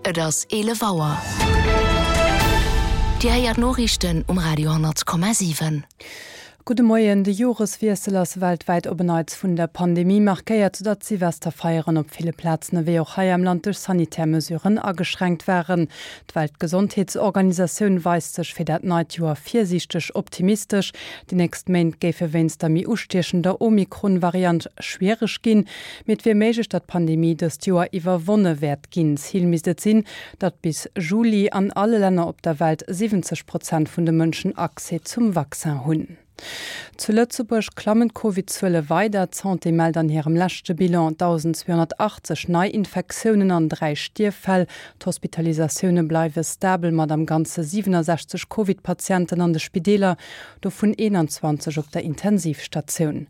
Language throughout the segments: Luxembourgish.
Et ass 11 Auer. Dir héiert d'Noriichten um Radio 10,7. Gudde Moien. De Joreswiessel ass weltwäit op en Neits vun der Pandemie markéiert, soudatt d'Silvesterfeieren op ville Plazen ewéi och hei am Land duerch sanitär Mesuren ageschränkt waren. D'Weltgesondheetsorganisatioun weist sech fir dat neit Joer virsiichteg optimistesch. Déi nächst Méint géife wéinst der méi ustiechender Omikron-Variant schwiereg ginn. Mee et wier méiglech, datt d'Pandemie dëst Joer iwwerwonne wäert ginn. Zil misst et sinn, datt bis Juli an alle Länner op der Welt 70 Prozent vun de Mënschen Accès zum Vaccin hunn. Zu Lëtzebuerg klammen d'Covid-Zuele weider. D'Santé mellt an hirem leschte Bilan 1.280 Neiinfektiounen an 3 Stierffäll. D'Hospitalisatioune bleiwe stabel mat am Ganze 67 Covid-Patienten an de Spideeler. Dovun 21 op der Intensivstatioun.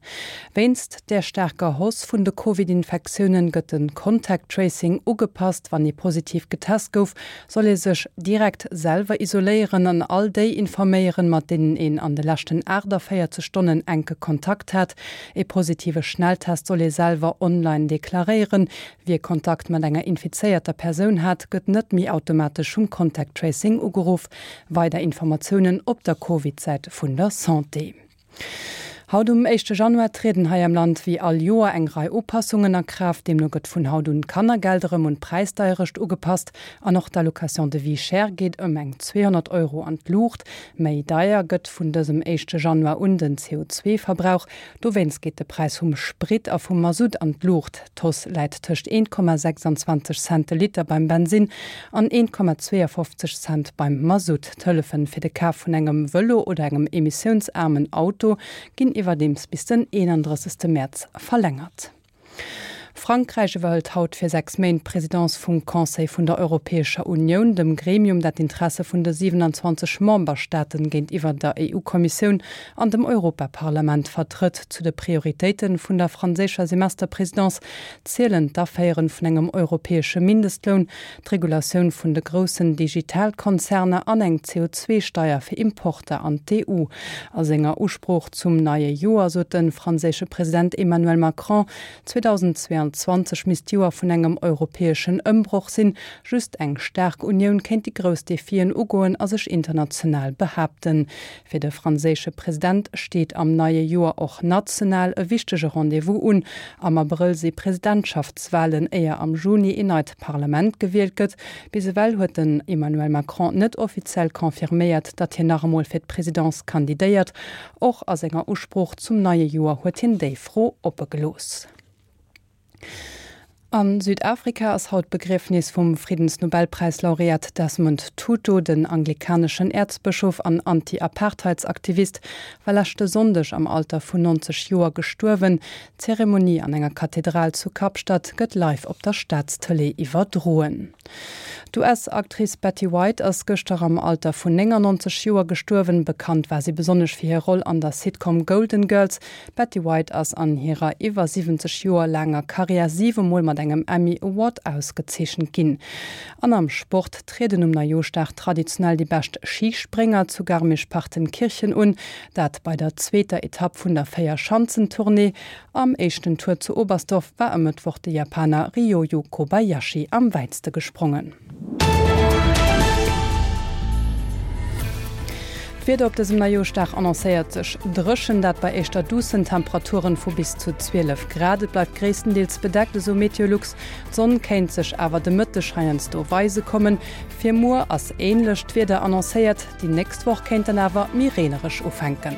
Wéinst där staarker Hausse vun de Covid-Infektiounen gëtt de Contact Tracing ugepasst. Wann ee positiv getest gouf, soll ee sech direkt selwer isoléieren an all déi informéieren, mat deenen een an de leschten 48 Stonnen enke Kontakt hat. Ee positive Schnelltest soll ee selwer online deklaréieren. Wie Kontakt mat enger infizéierter Persoun hat, gëtt net méi automatesch vum Contact Tracing ugeruff. Weider Informatiounen op der Covid-Säit vun der Santé. Haut um éischte Januar trieden hei am Land wéi all Joer eng Rei Upassungen a Kraaft. Deemno gëtt vun haut un d'Kannergeld erëm un d'Präisdeierecht ugepasst an och d'Allocation de vie chère geet ëm eng 200 Euro an d'Luucht. Méi deier gëtt vun dësem éischte Januar un den CO2-Verbrauch. Dowéinst geet de Präis vum Sprit a vum Masutt an d'Luucht. D'Hausse läit tëscht 1,26 Cent de Liter beim Bensinn an 1,52 Cent beim Masutt. D'Hëllefen fir de Kaf vun engem Vëlo oder engem emissiounsaarmen Auto ginn iwwerdeems bis den 31. Mäerz verlängert. Frankräich iwwerhëlt haut fir 6 Méint d'Presidence vum Conseil vun der Europäescher Unioun, dem Gremium, dat d'Interesse vun de 27 Memberstaaten géintiwwer der EU-Kommissioun an dem Europaparlament vertrëtt. Zu de Prioritéite vun der franséischer Semesterpresidence zielen d'Aféiere vun engem europäesche Mindestloun, d'Regulatioun vun de groussen Digitalkonzerner an eng CO2-Steier fir Importer an d'EU. A senger Usprooch zum neie Joer sot de franséische President Emmanuel Macron, 2022 misst d'Joer vun engem europäeschen Ëmbroch sinn. Just eng staark Unioun kéint déi grouss Defien ugoen a sech international behaapten. Fir de franséische President steet am neie Joer och national e wichtege Rendez-vous un. Am Abrëll si Presidentschaftswalen, éier am Juni een neit Parlament gewielt gëtt. Bis ewell huet den Emmanuel Macron net offiziell confirméiert, datt hien nach emol fir d'Presidence kandidéiert. Och a senger Usprooch zum neie Joer huet hien déi Fro oppe gelooss. A Südafrika ass haut d'Begriefnis vum Friddensnobelpräislaureat Desmond Tutu. Den anglikaneschen Äerzbëschof an Anti-Apartheidsaktivist war leschte Sonndeg am Alter vun 90 Joer gestuerwen. D'Zeremonie an enger Kathedral zu Kapstadt gëtt live op der Staatstëlee iwwerdroen. D'US-Actrice Betty White ass gëschter am Alter vun 99 Joer gestuerwen. Bekannt war si besonnesch fir hir Roll an der Sitcom Golden Girls. D'Betty White ass an hirer iwwer 70 Joer laanger Karriär siwe Mol mat engem Emmy Award ausgezeechent ginn. An am Sport trieden um Neijooschdag traditionell déi bescht Schisprénger zu Garmisch-Partenkirchen un, dat bei der zweeter Etapp vun der Véierschanzentournée. Am éischten Tour zu Oberstdorf war e Mëttwoch de Japaner Ryoyu Kobayashi am wäitste gesprongen. D'Wieder op dësem Neijooschdag annoncéiert sech dréchen, dat bei éischter duussen Temperaturen vu bis zu 12 Grad. Et bleift gréisstendeels bedeckt, esou Meteolux. D'Sonn kéint sech awer de Mëtteg heiansdo weise kommen. Fir muer ass änlecht Wieder annoncéiert, déi nächst Woch kéint dann awer méi reenereg ufänken.